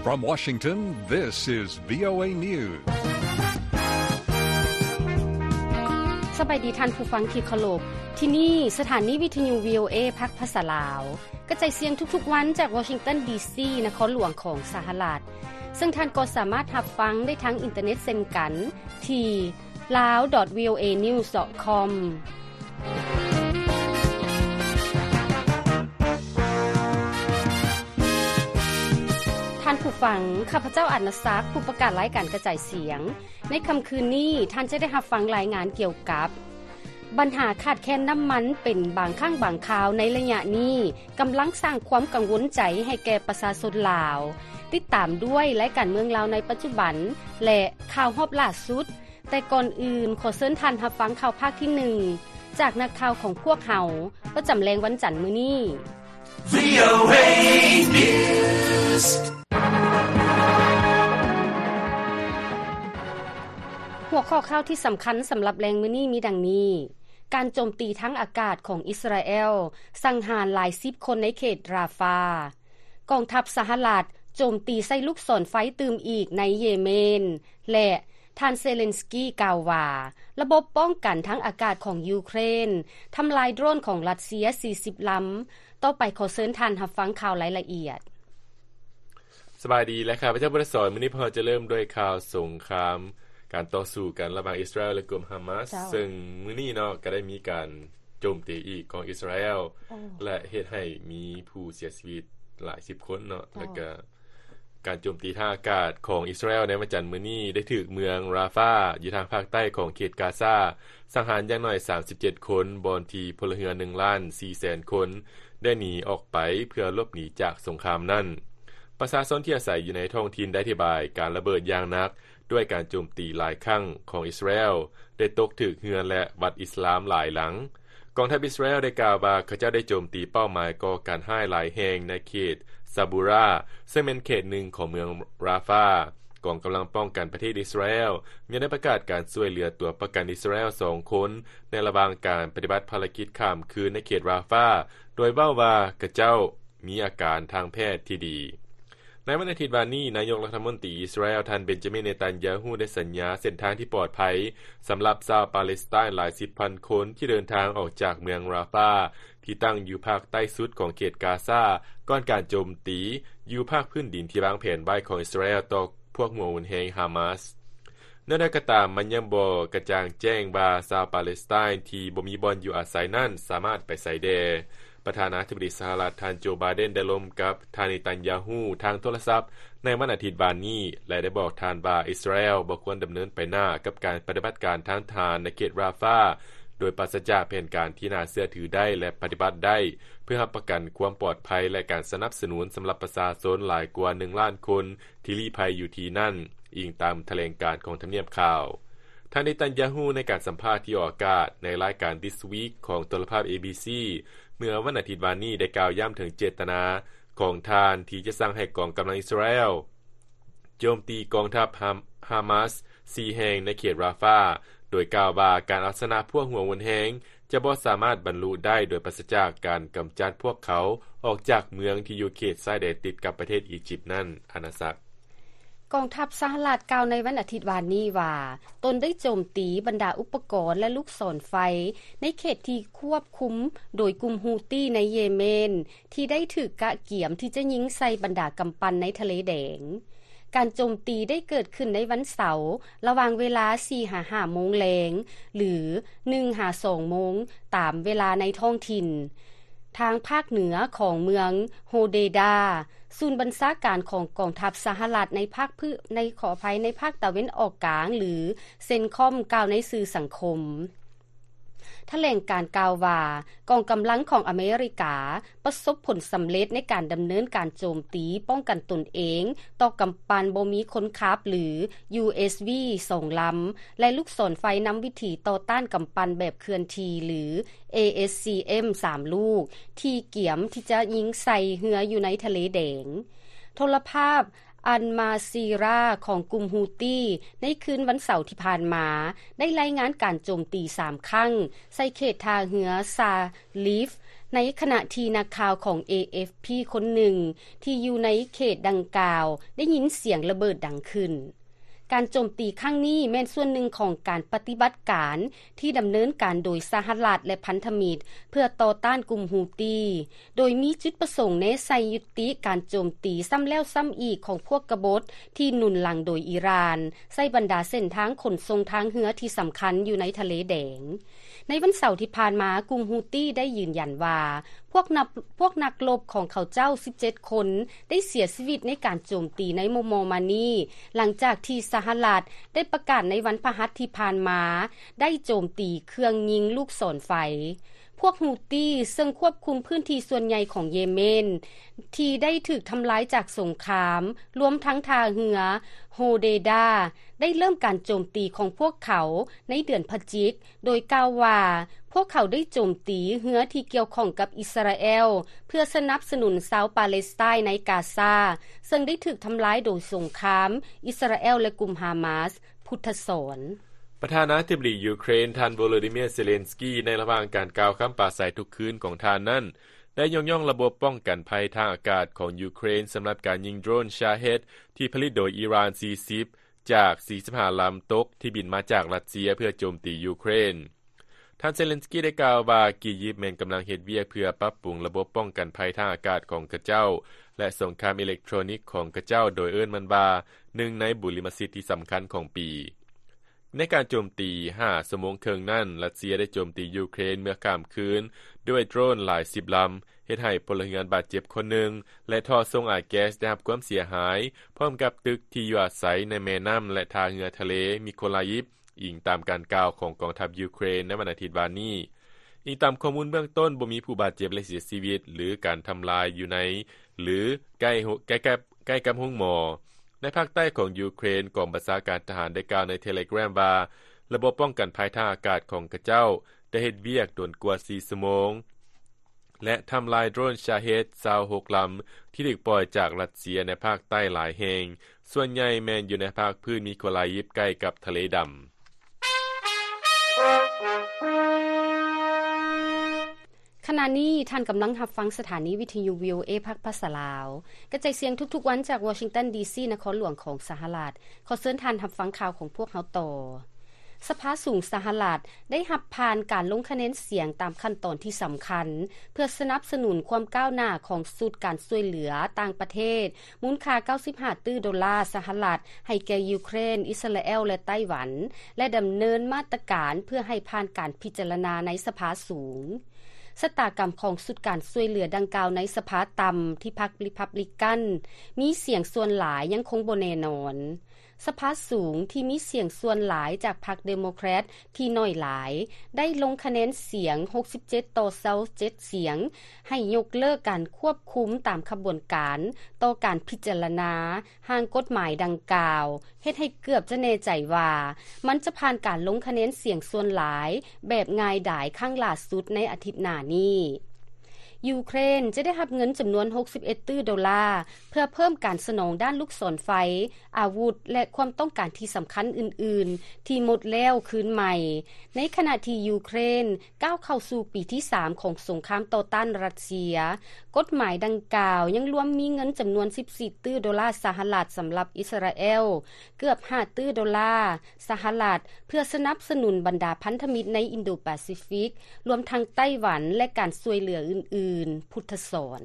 From Washington, this is VOA News. ສະບາຍດີທ່ານຜູ້ຟັງທີ່ເຄົາລົບ. ທີ່ນີ້ສະຖານີວິທະຍຸ VOA ພາກພາສາລາວ ກະຈາຍສຽງທຸກໆວັນຈາກວໍຊິງຕັນ ດີຊີ ນະຄອນຫຼວງຂອງສະຫະລັດ, ເຊິ່ງທ່ານກໍສາມາດຮັບຟັງໄດ້ທາງອິນເຕີເນັດເຊັ່ນກັນ ທີ່ ลาว ดอท วีโอเอ นิวส์ ดอท คอม ທ່ານຜູ້ຟັງ, ຂ້າພະເຈົ້າ ອານາສັກ, ຜູ້ປະກາດລາຍການກະຈາຍສຽງ. ໃນຄ່ຳຄືນນີ້, ທ່ານຈະໄດ້ຮັບຟັງລາຍງານກ່ຽວກັບ ບັນຫາຂາດແຄນນ້ຳມັນເປັນບາງຄັ້ງບາງຄາວໃນໄລຍະນີ້ ກຳລັງສ້າງຄວາມກັງວົນໃຈໃຫ້ແກ່ປະຊາຊົນລາວ. ຕິດຕາມດ້ວຍລາຍການເມືອງລາວໃນປັດຈຸບັນ ແລະ ຂ່າວຮອບລ່າສຸດ. ແຕ່ກ່ອນອື່ນ, ຂໍເຊີນທ່ານຮັບຟັງຂ່າວພາກທີໜຶ່ງ ຈາກນັກຂ່າວຂອງພວກເຮົາ ປະຈຳແລງວັນຈັນມື້ນີ້. VOA News. ຫົວຂໍ້ຂ່າວທີ່ສຳຄັນສຳລັບແລງມື້ນີ້ມີດັ່ງນີ້: ການໂຈມຕີທາງອາກາດຂອງອິດສະຣາແອລສັງຫານຫຼາຍສິບຄົນໃນເຂດຣາຟາ. ກອງທັບສະຫະລັດໂຈມຕີໃສ່ລູກສອນໄຟຕື່ມອີກໃນເຢເມນ ແລະ ທ່ານເຊເລັນສກີກ່າວວ່າ ລະບົບປ້ອງກັນທາງອາກາດຂອງຢູເຄຣນທຳລາຍໂດຣນຂອງຣັດເຊຍສີ່ສິບລຳ. ຕໍ່ໄປຂໍເຊີນທ່ານຮັບຟັງຂ່າວລາຍລະອຽດ. ສະບາຍດີ ແລະ ຂ້າພະເຈົ້າ ບຸດສອນ. ມື້ນີ້ພວກເຮົາຈະເລີ່ມດ້ວຍຂ່າວສົງຄາມ ການຕໍ່ສູ້ກັນລະຫວ່າງອິດສະຣາແອລ ແລະ ກຸ່ມຮາມາສ ເຊິ່ງມື້ນີ້ເນາະ ກໍໄດ້ມີການໂຈມຕີອີກຂອງອິດສະຣາແອລ ແລະ ເຮັດໃຫ້ມີຜູ້ເສຍຊີວິດຫຼາຍສິບຄົນເນາະ ແລະ ກະ ການໂຈມຕີທາງອາກາດຂອງອິດສະຣາແອລໃນວັນຈັນມື້ນີ້ ໄດ້ຖືກເມືອງຣາຟາ ຢູ່ທາງພາກໃຕ້ຂອງເຂດກາຊາ ສັງຫານຢ່າງໜ້ອຍສາມສິບເຈັດຄົນ, ບ່ອນທີ່ພົນລະເຮືອນໜຶ່ງລ້ານສີ່ແສນຄົນ ໄດ້ໜີອອກໄປເພື່ອຫຼົບໜີຈາກສົງຄາມນັ້ນ. ປະຊາຊົນທີ່ອາໄສຢູ່ໃນທ້ອງຖິ່ນໄດ້ອະທິບາຍການລະເບີດຢ່າງໜັກ ດ້ວຍການໂຈມຕີຫຼາຍຄັ້ງຂອງອິດສະຣາແອລ ໄດ້ຕົກຖືກເຮືອນ ແລະ ວັດອິດສະລາມຫຼາຍຫຼັງ. ກອງທັບອິດສະຣາແອລໄດ້ກ່າວວ່າ ເຂົາເຈົ້າໄດ້ໂຈມຕີເປົ້າໝາຍກໍ່ການຮ້າຍຫຼາຍແຫ່ງໃນເຂດຊາບູຣາ ເຊິ່ງແມ່ນເຂດໜຶ່ງຂອງເມືອງຣາຟາ. ກອງກຳລັງປ້ອງກັນປະເທດອິດສະຣາແອລຍັງໄດ້ປະກາດການຊ່ວຍເຫຼືອຕົວປະກັນອິດສະຣາແອລສອງຄົນ ໃນລະຫວ່າງການປະຕິບັດພາລະກິດຂ້າມຄືນໃນເຂດຣາຟາ ໂດຍເວົ້າວ່າ ເຂົາເຈົ້າມີອາການທາງແພດທີ່ດີ. ໃນວັນອາທິດວານນີ້, ນາຍົກລັດຖະມົນຕີອິດສະຣາແອລ ທ່ານ ເບນຈາມິນ ເນຕັນຍາຮູ້ ໄດ້ສັນຍາເສັ້ນທາງທີ່ປອດໄພ ສຳລັບຊາວປາເລສໄຕນຫຼາຍສິບພັນຄົນ ທີ່ເດີນທາງອອກຈາກເມືອງຣາຟາ ທີ່ຕັ້ງຢູ່ພາກໃຕ້ສຸດຂອງເຂດກາຊາ ກ່ອນການໂຈມຕີຢູ່ພາກພື້ນດິນທີ່ວາງແຜນໄວ້ຂອງອິດສະຣາແອລຕໍ່ພວກຫົວຮຸນແຮງຮາມາສ. ແນວໃດກໍຕາມ, ມັນຍັງບໍ່ກະຈ່າງແຈ້ງວ່າຊາວປາເລສໄຕນທີ່ບໍ່ມີບ່ອນຢູ່ອາໄສນັ້ນສາມາດໄປໃສແດ່. ປະທານາທິບໍດີສະຫະລັດ ທ່ານ ໂຈ ບາເດັນ ໄດ້ລົມກັບທ່ານ ເນຕັນຍາຮູ້ ທາງໂທລະສັບໃນວັນອາທິດວານນີ້ ແລະ ໄດ້ບອກທ່ານວ່າ ອິດສະຣາແອລບໍ່ຄວນດຳເນີນໄປໜ້າກັບການປະຕິບັດການທາງທະຫານໃນເຂດຣາຟາ ໂດຍປາສະຈາກແຜນການທີ່ໜ້າເຊື່ອຖືໄດ້ ແລະ ປະຕິບັດໄດ້ ເພື່ອຮັບປະກັນຄວາມປອດໄພ ແລະ ການສະໜັບສະໜູນສຳລັບປະຊາຊົນຫຼາຍກວ່າໜຶ່ງລ້ານຄົນ ທີ່ລີ້ໄພຢູ່ທີ່ນັ້ນ, ອີງຕາມຖະແຫຼງການຂອງທຳນຽບຂາວ. ທ່ານ ເນຕັນຍາຮູ້ ໃນການສຳພາດທີ່ອອກອາກາດໃນລາຍການ This Week ຂອງໂທລະພາບ ເອບີຊີ ເມື່ອວັນອາທິດວານນີ້ ໄດ້ກ່າວຢ້ຳເຖິງເຈດຕະນາຂອງທ່ານທີ່ຈະສັ່ງໃຫ້ກອງກຳລັງອິດສະຣາແອລໂຈມຕີກອງທັບຮາມ-, ຮາມາສສີ່ແຫ່ງໃນເຂດຣາຟາ, ໂດຍກ່າວວ່າການເອົາຊະນະພວກຫົວຮຸນແຮງຈະບໍ່ສາມາດບັນລຸໄດ້ໂດຍປາສະຈາກການກຳຈັດພວກເຂົາອອກຈາກເມືອງທີ່ຢູ່ເຂດຊາຍແດນຕິດກັບປະເທດອີຢິບນັ້ນ. ອານາສັກ. ກອງທັບສະຫະລັດກ່າວໃນວັນອາທິດວານນີ້ວ່າ ຕົນໄດ້ໂຈມຕີບັນດາອຸປະກອນ ແລະ ລູກສອນໄຟໃນເຂດທີ່ຄວບຄຸມໂດຍກຸ່ມຮູ້ຕີໃນເຢເມນ ທີ່ໄດ້ຖືກກະກຽມທີ່ຈະຍິງໃສ່ບັນດາກຳປັ່ນໃນທະເລແດງ. ການໂຈມຕີໄດ້ເກີດຂຶ້ນໃນວັນເສົາ ລະຫວ່າງເວລາສີ່ຫາຫ້າໂມງແລງ ຫຼື ໜຶ່ງຫາສອງໂມງ ຕາມເວລາໃນທ້ອງຖິ່ນ. ທາງພາກເໜືອຂອງເມືອງໂຮເດດາ, ສູນບັນຊາການຂອງກອງທັບສະຫະລັດໃນພາກພື້-, ໃນ, ຂໍອະໄພ, ໃນພາກຕາເວັນອອກກາງ ຫຼື ເຊັນຄອມ ກ່າວໃນສື່ສັງຄົມ. ຖະແຫຼງການກ່າວວ່າ ກອງກຳລັງຂອງອາເມລິກາປະສົບຜົນສຳເລັດໃນການດຳເນີນການໂຈມຕີປ້ອງກັນຕົນເອງຕໍ່ກຳປັ່ນບໍ່ມີຄົນຂັບ ຫຼື ຢູເອສວີ ສອງລຳ ແລະ ລູກສອນໄຟນຳວິຖີຕໍ່ຕ້ານກຳປັ່ນແບບເຄື່ອນທີ່ ຫຼື ເອເອສຊີເອັມ ສາມລູກ ທີ່ກຽມທີ່ຈະຍິງໃສ່ເຮືອຢູ່ໃນທະເລແດງ. ໂທລະພາບ ອັນມາຊີຣາ ຂອງກຸ່ມຮູ້ຕີ ໃນຄືນວັນເສົາທີ່ຜ່ານມາ ໄດ້ລາຍງານການໂຈມຕີສາມຄັ້ງ ໃສ່ເຂດທ່າເຮືອຊາລີຟ ໃນຂະນະທີ່ນັກຂ່າວຂອງ ເອ ເອັຟ ພີ ຄົນໜຶ່ງທີ່ຢູ່ໃນເຂດດັ່ງກ່າວໄດ້ຍິນສຽງລະເບີດດັງຂຶ້ນ. ການໂຈມຕີຄັ້ງນີ້ແມ່ນສ່ວນໜຶ່ງຂອງການປະຕິບັດການທີ່ດຳເນີນການໂດຍສະຫະລັດ ແລະ ພັນທະມິດ ເພື່ອຕໍ່ຕ້ານກຸ່ມຮູ້ຕີ, ໂດຍມີຈຸດປະສົງແນໃສ່ຍຸຕິການໂຈມຕີຊ້ຳແລ້ວຊ້ຳອີກຂອງພວກກະບົດທີ່ໜູນຫຼັງໂດຍອີຣານ ໃສ່ບັນດາເສັ້ນທາງຂົນສົ່ງທາງເຮືອທີ່ສຳຄັນຢູ່ໃນທະເລແດງ. ໃນວັນເສົາທີ່ຜ່ານມາ, ກຸ່ມຮູ້ຕີໄດ້ຢືນຢັນວ່າ ພວກນັກ ພວກນັກລົບຂອງເຂົາເຈົ້າສິບເຈັດຄົນ ໄດ້ເສຍຊີວິດໃນການໂຈມຕີໃນມໍ່ໆມານີ້, ຫຼັງຈາກທີ່ສະຫະລັດໄດ້ປະກາດໃນວັນພະຫັດທີ່ຜ່ານມາ ໄດ້ໂຈມຕີເຄື່ອງຍິງລູກສອນໄຟ. ພວກຮູ້ຕີ ເຊິ່ງຄວບຄຸມພື້ນທີ່ສ່ວນໃຫຍ່ຂອງເຢເມນ ທີ່ໄດ້ຖືກທຳລາຍຈາກສົງຄາມ, ລວມທັງທ່າເຮືອໂຮເດດາ ໄດ້ເລີ່ມການໂຈມຕີຂອງພວກເຂົາໃນເດືອນພະຈິກ, ໂດຍກ່າວວ່າ ພວກເຂົາໄດ້ໂຈມຕີເຮືອທີ່ກ່ຽວຂ້ອງກັບອິດສະຣາແອລ ເພື່ອສະໜັບສະໜູນຊາວປາເລສໄຕໃນກາຊາ ເຊິ່ງໄດ້ຖືກທຳລາຍໂດຍສົງຄາມອິດສະຣາແອລ ແລະ ກຸ່ມຮາມາສ. ພຸດທະສອນ. ປະທານາທິບໍດີຢູເຄຣນ ທ່ານ ໂວໂລດີເມຍ ເຊເລັນສກີ ໃນລະຫວ່າງການກ່າວຄຳປາໄສທຸກຄືນຂອງທ່ານນັ້ນ ໄດ້ຍົກຍ້ອງລະບົບປ້ອງກັນໄພທາງອາກາດຂອງຢູເຄຣນ ສຳລັບການຍິງໂດຣນຊາເຮດ ທີ່ຜະລິດໂດຍອີຣານສີ່ສິບ ຈາກສີ່ສິບຫ້າລຳຕົກ ທີ່ບິນມາຈາກຣັດເຊຍເພື່ອໂຈມຕີຢູເຄຣນ. ທ່ານເຊເລັນສກີໄດ້ກ່າວວ່າ ອີຢິບແມ່ນກຳລັງເຮັດວຽກເພື່ອປັບປຸງລະບົບປ້ອງກັນໄພທາງອາກາດຂອງຂະເຈົ້າ ແລະ ສົງຄາມອີເລັກໂທຣນິກຂອງຂະເຈົ້າ, ໂດຍເອີ້ນມັນວ່າ ໜຶ່ງໃນບຸລິມະສິດທີ່ສຳຄັນຂອງປີ. ໃນການໂຈມຕີຫ້າຊົ່ວໂມງເຄິ່ງນັ້ນ, ຣັດເຊຍໄດ້ໂຈມຕີຢູເຄຣນເມື່ອຂ້າມຄືນດ້ວຍໂດຣນຫຼາຍສິບລຳ, ເຮັດໃຫ້ພົນລະເຮືອນບາດເຈັບຄົນໜຶ່ງ ແລະ ທໍ່ສົ່ງອາຍແກັສໄດ້ຮັບຄວາມເສຍຫາຍ, ພ້ອມກັບຕຶກທີ່ຢູ່ອາໄສໃນແມ່ນ້ຳ ແລະ ທ່າເຮືອທະເລມິໂຄລາອີຟ. ອີງຕາມການກ່າວຂອງກອງທັບຢູເຄຣນໃນວັນອາທິດວານນີ້. ອີງຕາມຂໍ້ມູນເບື້ອງຕົ້ນ, ບໍ່ມີຜູ້ບາດເຈັບ ແລະ ເສຍຊີວິດ ຫຼື ການທຳລາຍຢູ່ໃນ ຫຼື ໃກ້ໂຮ ໃກ້ກັບ ໃກ້ກັບໂຮງໝໍ. ໃນພາກໃຕ້ຂອງຢູເຄຣນ, ກອງບັນຊາການທະຫານໄດ້ກ່າວໃນເທເລແກຣມວ່າ ລະບົບປ້ອງກັນໄພທາງອາກາດຂອງຂະເຈົ້າໄດ້ເຮັດວຽກດົນກວ່າສີ່ຊົ່ວໂມງ ແລະ ທຳລາຍໂດຣນຊາເຮດຊາວຫົກລຳ ທີ່ຖືກປ່ອຍຈາກຣັດເຊຍໃນພາກໃຕ້ຫຼາຍແຫ່ງ, ສ່ວນໃຫຍ່ແມ່ນຢູ່ໃນພາກພື້ນມິໂຄລາອີຟ ໃກ້ກັບທະເລດຳ. ຂະນະນີ້ທ່ານກຳລັງຮັບຟັງສະຖານີວິທະຍຸ ວີໂອເອ ພາກພາສາລາວ, ກະຈາຍສຽງທຸກໆວັນຈາກວໍຊິງຕັນ ດີຊີ ນະຄອນຫຼວງຂອງສະຫະລັດ. ຂໍເຊີນທ່ານຮັບຟັງຂ່າວຂອງພວກເຮົາຕໍ່. ສະພາສູງສະຫະລັດໄດ້ຮັບຜ່ານການລົງຄະແນນສຽງຕາມຂັ້ນຕອນທີ່ສຳຄັນ ເພື່ອສະໜັບສະໜູນຄວາມກ້າວໜ້າຂອງຊຸດການຊ່ວຍເຫຼືອຕ່າງປະເທດ ມູນຄ່າເກົ້າສິບຫ້າຕື້ໂດລາສະຫະລັດ ໃຫ້ແກ່ຢູເຄຣນ, ອິດສະຣາແອລ ແລະ ໄຕ້ຫວັນ ແລະ ດຳເນີນມາດຕະການເພື່ອໃຫ້ຜ່ານການພິຈາລະນາໃນສະພາສູງ. ຊະຕາກຳຂອງຊຸດການຊ່ວຍເຫຼືອດັ່ງກ່າວໃນສະພາຕ່ຳທີ່ພັກຣີພັບລິກັນມີສຽງສ່ວນຫຼາຍຍັງຄົງບໍ່ແນ່ນອນ. ສະພາສູງທີ່ມີສຽງສ່ວນຫຼາຍຈາກພັກເດໂມແຄຣດທີ່ໜ້ອຍຫຼາຍ ໄດ້ລົງຄະແນນສຽງຫົກສິບເຈັດຕໍ່ຊາວເຈັດສຽງ ໃຫ້ຍົກເລີກການຄວບຄຸມຕາມຂະບວນການຕໍ່ການພິຈາລະນາຮ່າງກົດໝາຍດັ່ງກ່າວ, ເຮັດໃຫ້ເກືອບຈະແນ່ໃຈວ່າມັນຈະຜ່ານການລົງຄະແນນສຽງສ່ວນຫຼາຍແບບງ່າຍດາຍຄັ້ງຫຼ້າສຸດໃນອາທິດໜ້ານີ້. ຢູເຄຣນຈະໄດ້ຮັບເງິນຈຳນວນຫົກສິບເອັດຕື້ໂດລາ ເພື່ອເພີ່ມການສະໜອງດ້ານລູກສອນໄຟ, ອາວຸດ ແລະ ຄວາມຕ້ອງການທີ່ສຳຄັນອື່ນໆ ທີ່ໝົດແລ້ວຄືນໃໝ່. ໃນຂະນະທີ່ຢູເຄຣນກ້າວເຂົ້າສູ່ປີທີສາມຂອງສົງຄາມຕໍ່ຕ້ານຣັດເຊຍ, ກົດໝາຍດັ່ງກ່າວຍັງລວມມີເງິນຈຳນວນສິບສີ່ຕື້ໂດລາສະຫະລັດສຳລັບອິດສະຣາແອລ, ເກືອບຫ້າຕື້ໂດລາສະຫະລັດ ເພື່ອສະໜັບສະໜູນບັນດາພັນທະມິດໃນອິນໂດປາຊີຟິກ, ລວມທັງໄຕ້ຫວັນ ແລະ ການຊ່ວຍເຫຼືອອື່ນໆ. ພຸດທະສອນ.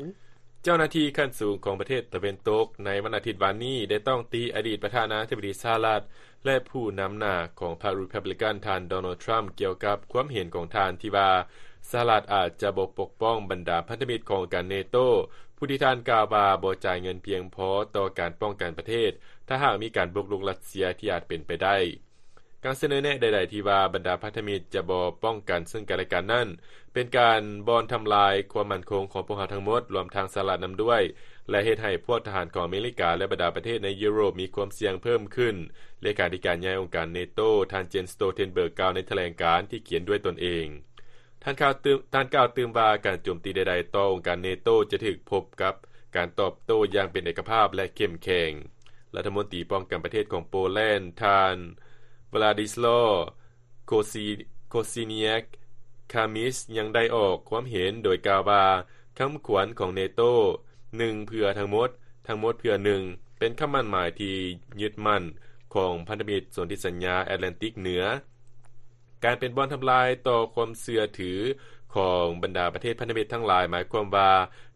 ເຈົ້າໜ້າທີ່ຂັ້ນສູງຂອງປະເທດຕາເວັນຕົກໃນວັນອາທິດວານນີ້ ໄດ້ຕ້ອງຕີອະດີດປະທານາທິບໍດີສະຫະລັດ ແລະ ຜູ້ນຳໜ້າຂອງພັກຣີພັບລິກັນ ທ່ານ ໂດນັລ ທຣຳ ກ່ຽວກັບຄວາມເຫັນຂອງທ່ານທີ່ວ່າ ສະຫະລັດອາດຈະບໍ່ປົກປ້ອງບັນດາພັນທະມິດຂອງອົງການເນໂຕ, ຜູ້ທີ່ທ່ານກ່າວວ່າບໍ່ຈ່າຍເງິນພຽງພໍຕໍ່ການປ້ອງກັນປະເທດ ຖ້າຫາກມີການບຸກລຸກຣັດເຊຍທີ່ອາດເປັນໄປໄດ້. ການສະເໜີແນະໃດໆທີ່ວ່າບັນດາພັນທະມິດຈະບໍ່ປ້ອງກັນເຊິ່ງກັນແລະກັນນັ້ນ ເປັນການບ່ອນທຳລາຍຄວາມໝັ້ນຄົງຂອງພວກເຮົາທັງໝົດ, ລວມທັງສະຫະລັດນຳດ້ວຍ, ແລະ ເຮັດໃຫ້ພວກທະຫານຂອງອາເມລິກາ ແລະ ບັນດາປະເທດໃນຢູໂຣບມີຄວາມສ່ຽງເພີ່ມຂຶ້ນ, ເລຂາທິການໃຫຍ່ອົງການເນໂຕ ທ່ານ ເຈນ ສະໂຕເທນເບີກ ກ່າວໃນຖະແຫຼງການທີ່ຂຽນດ້ວຍຕົນເອງ. ທ່ານກ່າວຕື່ມ ທ່ານກ່າວຕື່ມວ່າ ການໂຈມຕີໃດໆຕໍ່ອົງການເນໂຕຈະຖືກພົບກັບການຕອບໂຕ້ຢ່າງເປັນເອກະພາບ ແລະ ເຂັ້ມແຂງ. ລັດຖະມົນຕີປ້ອງກັນປະເທດຂອງໂປແລນ ທ່ານ ວລາດິສລາວ ໂຄຊີ ໂຄຊີເນຍກ ຄາມິສ ຍັງໄດ້ອອກຄວາມເຫັນໂດຍກ່າວວ່າ ຄຳຂວັນຂອງເນໂຕ ໜຶ່ງເພື່ອທັງໝົດ, ທັງໝົດເພື່ອໜຶ່ງ ເປັນຄຳໝັ້ນໝາຍທີ່ຍຶດໝັ້ນຂອງພັນທະມິດສົນທິສັນຍາແອດແລນຕິກເໜືອ. ການເປັນບ່ອນທຳລາຍຕໍ່ຄວາມເຊື່ອຖືຂອງບັນດາປະເທດພັນທະມິດທັງຫຼາຍ ໝາຍຄວາມວ່າ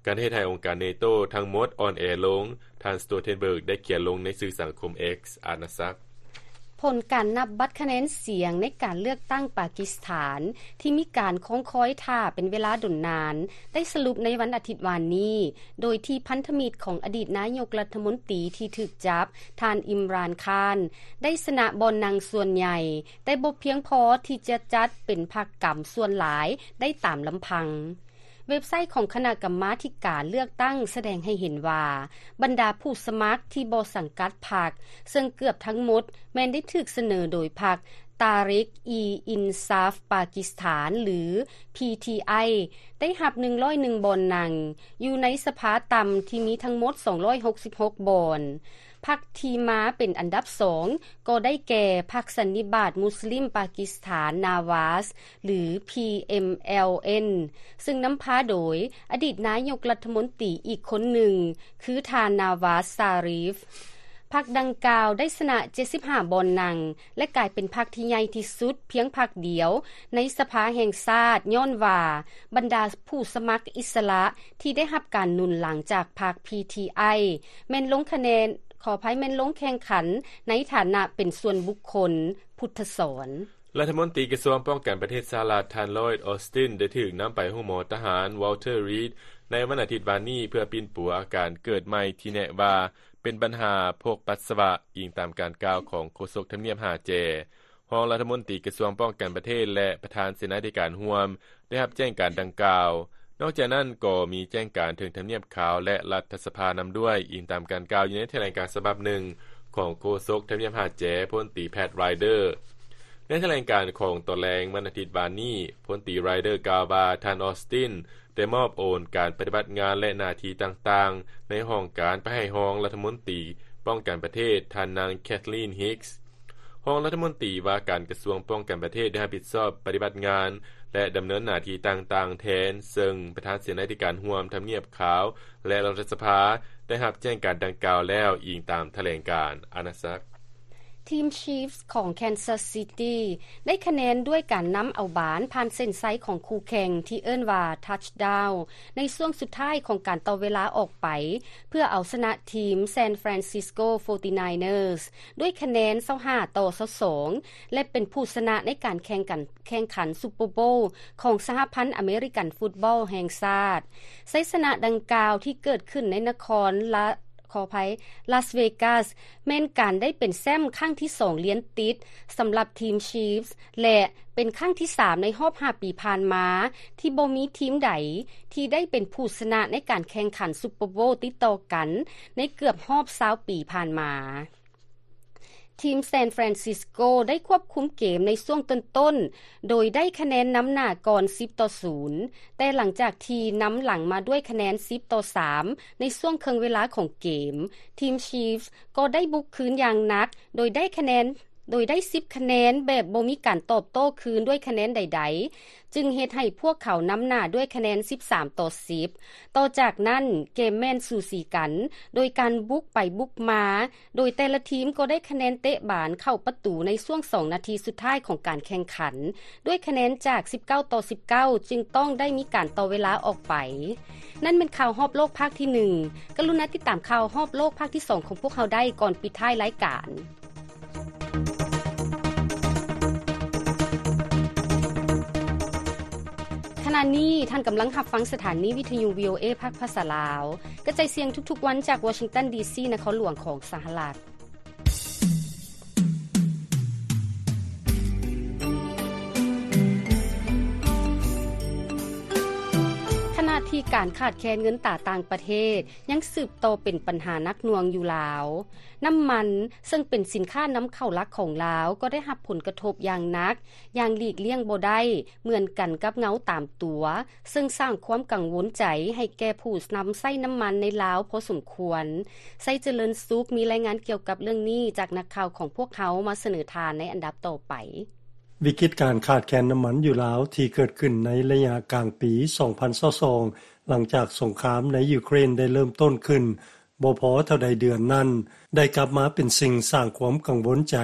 ການເຮັດໃຫ້ອົງການເນໂຕທັງໝົດອ່ອນແອລົງ, ທ່ານ Stoltenberg ໄດ້ຂຽນລົງໃນສື່ສັງຄົມ X ອານາສັກ. ຜົນການນັບບັດຄະແນນສຽງໃນການເລືອກຕັ້ງປາກິສຖານ ທີ່ມີການຄອງຄອຍຖ້າເປັນເວລາດົນນານ ໄດ້ສະຫຼຸບໃນວັນອາທິດວານນີ້ ໂດຍທີ່ພັນທະມິດຂອງອະດີດນາຍົກລັດຖະມົນຕີທີ່ຖືກຈັບ ທ່ານ ອິມຣານ ຄານ ໄດ້ຊະນະບ່ອນນັ່ງສ່ວນໃຫຍ່, ແຕ່ບໍ່ພຽງພໍທີ່ຈະຈັດເປັນພັກກຳສ່ວນຫຼາຍໄດ້ຕາມລຳພັງ. ເວັບໄຊຂອງຄະນະກຳມາທິການເລືອກຕັ້ງສະແດງໃຫ້ເຫັນວ່າ ບັນດາຜູ້ສະໝັກທີ່ບໍ່ສັງກັດພັກ ເຊິ່ງເກືອບທັງໝົດແມ່ນໄດ້ຖືກສະເໜີໂດຍພັກ ຕາຣິກ ອີ ອິນຊາຟ ປາກິສຖານ ຫຼື PTI ໄດ້ຮັບ ໜຶ່ງຮ້ອຍເອັດ ບ່ອນນັ່ງ ຢູ່ໃນສະພາຕ່ຳທີ່ມີທັງໝົດ ສອງຮ້ອຍຫົກສິບຫົກ ບ່ອນ. ພັກທີ່ມາເປັນອັນດັບສອງ ກໍໄດ້ແກ່ ພັກສັນນິບາດມຸສລິມປາກິສຖານ ນາວາສ ຫຼື PMLN ເຊິ່ງນຳພາໂດຍອະດີດນາຍົກລັດຖະມົນຕີອີກຄົນໜຶ່ງ ຄືທ່ານ ນາວາສ ຊາຣີຟ. ພັກດັ່ງກ່າວໄດ້ຊະນະ ເຈັດສິບຫ້າ ບ່ອນນັ່ງ ແລະ ກາຍເປັນພັກທີ່ໃຫຍ່ທີ່ສຸດພຽງພັກດຽວໃນສະພາແຫ່ງຊາດ ຍ້ອນວ່າບັນດາຜູ້ສະໝັກອິດສະຫຼະທີ່ໄດ້ຮັບການໜູນຫຼັງຈາກພັກ PTI ແມ່ນລົງຄະແນນ, ຂໍອະໄພ, ແມ່ນລົງແຂ່ງຂັນໃນຖານະເປັນສ່ວນບຸກຄົນ. ພຸດທະສອນ. ລັດຖະມົນຕີກະຊວງປ້ອງກັນປະເທດສະຫະລັດ ທ່ານ ລອຍດ ອອສຕິນ ໄດ້ຖືກນຳໄປໂຮງໝໍທະຫານ ວອລເທີ ຣີດ ໃນວັນອາທິດວານນີ້ ເພື່ອປິ່ນປົວອາການເກີດໃໝ່ທີ່ແນະວ່າເປັນບັນຫາພົກປັດສະວະ, ອີງຕາມການກ່າວຂອງໂຄສົກທຳນຽບຫ້າແຈ. ຮອງລັດຖະມົນຕີກະຊວງປ້ອງກັນປະເທດ ແລະ ປະທານເສນາທິການຮ່ວມ ໄດ້ຮັບແຈ້ງການດັ່ງກ່າວ. ນອກຈາກນັ້ນກໍມີແຈ້ງການເຖິງທຳນຽບຂາວ ແລະ ລັດຖະສະພານຳດ້ວຍ, ອີງຕາມການກ່າວຢູ່ໃນຖະແຫຼງການສະບັບໜຶ່ງຂອງໂຄສົກທຳນຽບຫ້າແຈ ພົນຕີ ແພັດ ຣາຍເດີ. ໃນຖະແຫຼງການຂອງຕອນແລງວັນອາທິດວານນີ້, ພົນຕີ ຣາຍເດີ ກ່າວວ່າ ທ່ານ ອອສຕິນ ໄດ້ມອບໂອນການປະຕິບັດງານ ແລະ ໜ້າທີ່ຕ່າງໆໃນຫ້ອງການໄປໃຫ້ຮອງລັດຖະມົນຕີປ້ອງກັນປະເທດ ທ່ານນາງ ແຄທລີນ ຮິກ. ຮອງລັດຖະມົນຕີວ່າການກະຊວງປ້ອງກັນປະເທດ ໄດ້ຮັບຜິດຊອບປະຕິບັດງານ ແລະ ດຳເນີນໜ້າທີ່ຕ່າງໆແທນ, ເຊິ່ງປະທານເສນາທິການຮ່ວມທຳນຽບຂາວ ແລະ ລັດຖະສະພາ ໄດ້ຮັບແຈ້ງການດັ່ງກ່າວແລ້ວ, ອີງຕາມຖະແຫຼງການອານາຈັກ. ທີມ Chiefs ຂອງ Kansas City ໄດ້ຄະແນນດ້ວຍການນຳເອົາບານຜ່ານເສັ້ນໄຊຂອງຄູ່ແຂ່ງທີ່ເອີ້ນວ່າ touchdown ໃນຊ່ວງສຸດທ້າຍຂອງການຕໍ່ເວລາອອກໄປ ເພື່ອເອົາຊະນະທີມ San Francisco forty-niners ດ້ວຍຄະແນນ ຊາວຫ້າຕໍ່ຊາວສອງ ແລະ ເປັນຜູ້ຊະນະໃນການແຂ່ງກັນ ແຂ່ງຂັນ Super Bowl ຂອງສະຫະພັນອາເມລິກັນຟຸດບອລແຫ່ງຊາດ. ໄຊຊະນະດັ່ງກ່າວທີ່ເກີດຂຶ້ນໃນນະຄອນລະ ຂໍອະໄພ ລາສເວກັສ ແມ່ນການໄດ້ເປັນແຊ້ມຄັ້ງທີສອງລຽນຕິດສຳລັບທີມ Chiefs ແລະ ເປັນຄັ້ງທີສາມໃນຮອບຫ້າປີຜ່ານມາ ທີ່ບໍ່ມີທີມໃດທີ່ໄດ້ເປັນຜູ້ຊະນະໃນການແຂ່ງຂັນ Super Bowl ຕິດຕໍ່ກັນໃນເກືອບຮອບຊາວປີຜ່ານມາ. ທີມ San Francisco ໄດ້ຄວບຄຸມເກມໃນຊ່ວງຕົ້ນໆ ໂດຍໄດ້ຄະແນນນຳໜ້າກ່ອນ ສິບຕໍ່ສູນ ແຕ່ຫຼັງຈາກທີ່ນຳຫຼັງມາດ້ວຍຄະແນນ ສິບຕໍ່ສາມ ໃນຊ່ວງເຄິ່ງເວລາຂອງເກມ, ທີມ Chiefs ກໍໄດ້ບຸກຄືນຢ່າງໜັກ ໂດຍໄດ້ຄະແນນ ໂດຍໄດ້ ສິບຄະແນນ ແບບບໍ່ມີການຕອບໂຕ້ຄືນດ້ວຍຄະແນນໃດໆ ຈຶ່ງເຮັດໃຫ້ພວກເຂົານຳໜ້າດ້ວຍຄະແນນ ສິບສາມຕໍ່ສິບ. ຕໍ່ຈາກນັ້ນເກມແມ່ນສູສີກັນ ໂດຍການບຸກໄປບຸກມາ, ໂດຍແຕ່ລະທີມກໍໄດ້ຄະແນນເຕະບານເຂົ້າປະຕູໃນຊ່ວງສອງນາທີສຸດທ້າຍຂອງການແຂ່ງຂັນ ດ້ວຍຄະແນນຈາກ ສິບເກົ້າຕໍ່ສິບເກົ້າ ຈຶ່ງຕ້ອງໄດ້ມີການຕໍ່ເວລາອອກໄປ. ນັ້ນແມ່ນຂ່າວຮອບໂລກພາກທີໜຶ່ງ. ກະລຸນາຕິດຕາມຂ່າວຮອບໂລກພາກທີສອງຂອງພວກເຮົາໄດ້ກ່ອນປິດທ້າຍລາຍການ. ຂະນະນີ້ທ່ານກຳລັງຮັບຟັງສະຖານີວິທະຍຸ VOA ພາກພາສາລາວ ກະຈາຍສຽງທຸກໆວັນຈາກວໍຊິງຕັນ ດີຊີ ນະຄອນຫຼວງຂອງສະຫະລັດ. ຂະນະທີ່ການຂາດແຄນເງິນຕາຕ່າງປະເທດຍັງສືບຕໍ່ເປັນບັນຫາໜັກໜ່ວງຢູ່ລາວ, ນ້ຳມັນ ເຊິ່ງເປັນສິນຄ້ານຳເຂົ້າຫຼັກຂອງລາວ ກໍໄດ້ຮັບຜົນກະທົບຢ່າງໜັກ, ຢ່າງຫຼີກລ່ຽງບໍ່ໄດ້, ເໝືອນກັນກັບເງົາຕາມຕົວ, ເຊິ່ງສ້າງຄວາມກັງວົນໃຈໃຫ້ແກ່ຜູ້ນຳໃຊ້ນ້ຳມັນໃນລາວພໍສົມຄວນ. ໄຊຈະເລີນສຸກ ມີລາຍງານກ່ຽວກັບເລື່ອງນີ້ຈາກນັກຂ່າວຂອງພວກເຮົາມາສະເໜີທ່ານໃນອັນດັບຕໍ່ໄປ. ວິກິດການຂາດແຄນນ້ຳມັນຢູ່ລາວ ທີ່ເກີດຂຶ້ນໃນໄລຍະກາງປີ ສອງພັນຊາວສອງ ຫຼັງຈາກສົງຄາມໃນຢູເຄຣນໄດ້ເລີ່ມຕົ້ນຂຶ້ນ ບໍ່ພໍເທົ່າໃດເດືອນນັ້ນ ໄດ້ກັບມາເປັນສິ່ງສ້າງຄວາມກັງວົນໃຈ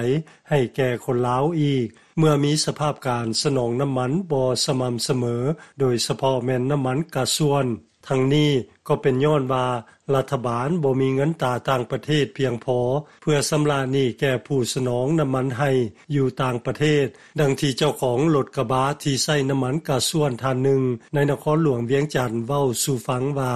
ໃຫ້ແກ່ຄົນລາວອີກ ເມື່ອມີສະພາບການສະໜອງນ້ຳມັນບໍ່ສະໝ່ຳສະເໝີ ໂດຍສະເພາະແມ່ນນ້ຳມັນກາຊວນ. ທັງນີ້ກໍເປັນຍ້ອນວ່າລັດຖະບານບໍ່ມີເງິນຕາຕ່າງປະເທດພຽງພໍ ເພື່ອຊຳລະໜີ້ແກ່ຜູ້ສະໜອງນ້ຳມັນໃຫ້ຢູ່ຕ່າງປະເທດ, ດັ່ງທີ່ເຈົ້າຂອງລົດກະບະທີ່ໃຊ້ນ້ຳມັນກາຊວນທ່ານໜຶ່ງໃນນະຄອນຫຼວງວຽງຈັນເວົ້າສູ່ຟັງວ່າ: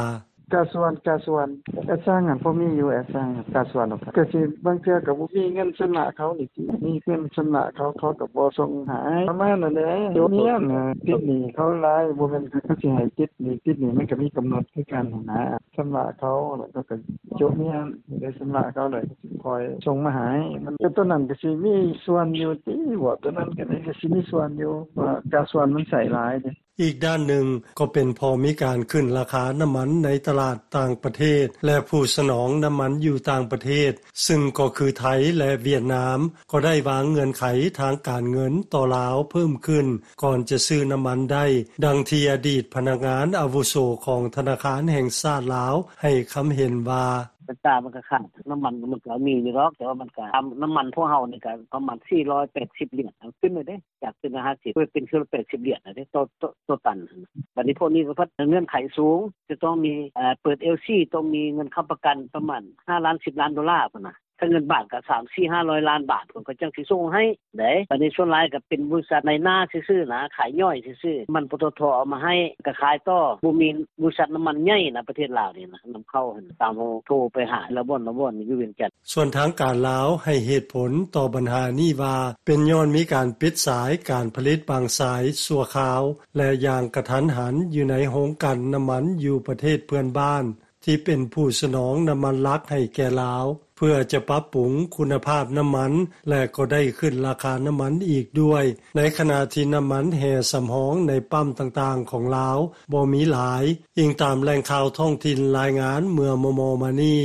ກາຊວນ ກາຊວນ ແອດຊັງຫັ້ນພໍມີຢູ່ ແອດຊັງຫັ້ນ ກາຊວນ ກະຊິບາງເທື່ອກະບໍ່ມີເງິນຊຳລະເຂົານີ້ຕິ ມີເງິນຊຳລະເຂົາ ເຂົາກະບໍ່ສົ່ງໃຫ້ ປະມານນັ້ນແຫຼະ ໂຈະເມຍນະ ຕິດໜີ້ເຂົາຫຼາຍ ບໍ່ແມ່ນເຂົາຊິໃຫ້ຕິດໜີ້ ຕິດໜີ້ມັນກະມີກຳນົດຄືກັນຫັ້ນນະ ຊຳລະເຂົາ ແລ້ວເຂົາກະໂຈະເມຍນ ໄດ້ຊຳລະເຂົາແລ້ວກະຊິຄ່ອຍສົ່ງມາໃຫ້ ມັນກະໂຕນັ້ນກະຊິມີສ່ວນຢູ່ຕິ ເວົ້າໂຕນັ້ນກະຊິມີສ່ວນຢູ່ ເພາະວ່າກາຊວນມັນໃຊ້ຫຼາຍເດ. ອີກດ້ານໜຶ່ງກໍເປັນເພາະມີການຂຶ້ນລາຄານ້ຳມັນໃນຕະຫຼາດຕ່າງປະເທດ ແລະ ຜູ້ສະໜອງນ້ຳມັນຢູ່ຕ່າງປະເທດ ຊຶ່ງກໍຄືໄທ ແລະ ຫວຽດນາມ ກໍໄດ້ວາງເງື່ອນໄຂທາງການເງິນຕໍ່ລາວເພີ່ມຂຶ້ນ ກ່ອນຈະຊື້ນ້ຳມັນໄດ້, ດັ່ງທີ່ອະດີດພະນັກງານອາວຸໂສຂອງທະນາຄານແຫ່ງຊາດລາວໃຫ້ຄຳເຫັນວ່າ: ເປັນຕາມັນກະຂາດ ນ້ຳມັນມັນກະມີຢູ່ດອກ ແຕ່ວ່າມັນກະ ນ້ຳມັນພວກເຮົານີ້ກະປະມານສີ່ຮ້ອຍແປດສິບຫຼຽນ ຂຶ້ນເລີຍເດ້ ຈາກເທື່ອລະຫ້າສິບ ເປັນເທື່ອລະແປດສິບຫຼຽນແລ້ວເດ້ ຕໍ່ ຕໍ່ຕັນຫັ້ນນະ ບາດນີ້ພວກນີ້ກໍພັດເງື່ອນໄຂສູງ ຈະຕ້ອງມີ ເປີດ ແອລຊີ ຕ້ອງມີເງິນຄ້ຳປະກັນປະມານຫ້າລ້ານ ສິບລ້ານໂດລາພຸ້ນນະ ຖ້າເງິນບາດກໍສາມສີ່ຫ້າຮ້ອຍລ້ານບາດ ເພິ່ນກໍຈັ່ງຊິສົ່ງໃຫ້ເດ້ ບາດນີ້ສ່ວນຫຼາຍກໍເປັນບໍລິສັດນາຍໜ້າຊື່ໆນະ ຂາຍຍ່ອຍຊື່ໆ ມັນ ປຕທ ເອົາມາໃຫ້ກໍຂາຍຕໍ່ ບໍ່ມີບໍລິສັດນ້ຳມັນໃຫຍ່ນະ ປະເທດລາວນີ້ນະ ນຳເຂົ້າຫັ້ນ ຕາມເຮົາໂທໄປຫາລະບ່ອນລະບ່ອນຢູ່ວຽງຈັນ. ສ່ວນທາງການລາວໃຫ້ເຫດຜົນຕໍ່ບັນຫານີ້ວ່າ ເປັນຍ້ອນມີການປິດສາຍການຜະລິດບາງສາຍຊົ່ວຄາວ ແລະ ຢ່າງກະທັນຫັນຢູ່ໃນໂຮງກັ່ນນ້ຳມັນຢູ່ປະເທດເພື່ອນບ້ານ ທີ່ເປັນຜູ້ສະໜອງນ້ຳມັນຫຼັກໃຫ້ແກ່ລາວ ເພື່ອຈະປັບປຸງຄຸນນະພາບນ້ຳມັນ ແລະ ກໍໄດ້ຂຶ້ນລາຄານ້ຳມັນອີກດ້ວຍ ໃນຂະນະທີ່ນ້ຳມັນແຮ່ສຳຮອງໃນປ້ຳຕ່າງໆຂອງລາວບໍ່ມີຫຼາຍ, ອີງຕາມແຫຼ່ງຂ່າວທ້ອງຖິ່ນລາຍງານເມື່ອມໍ່ໆມານີ້.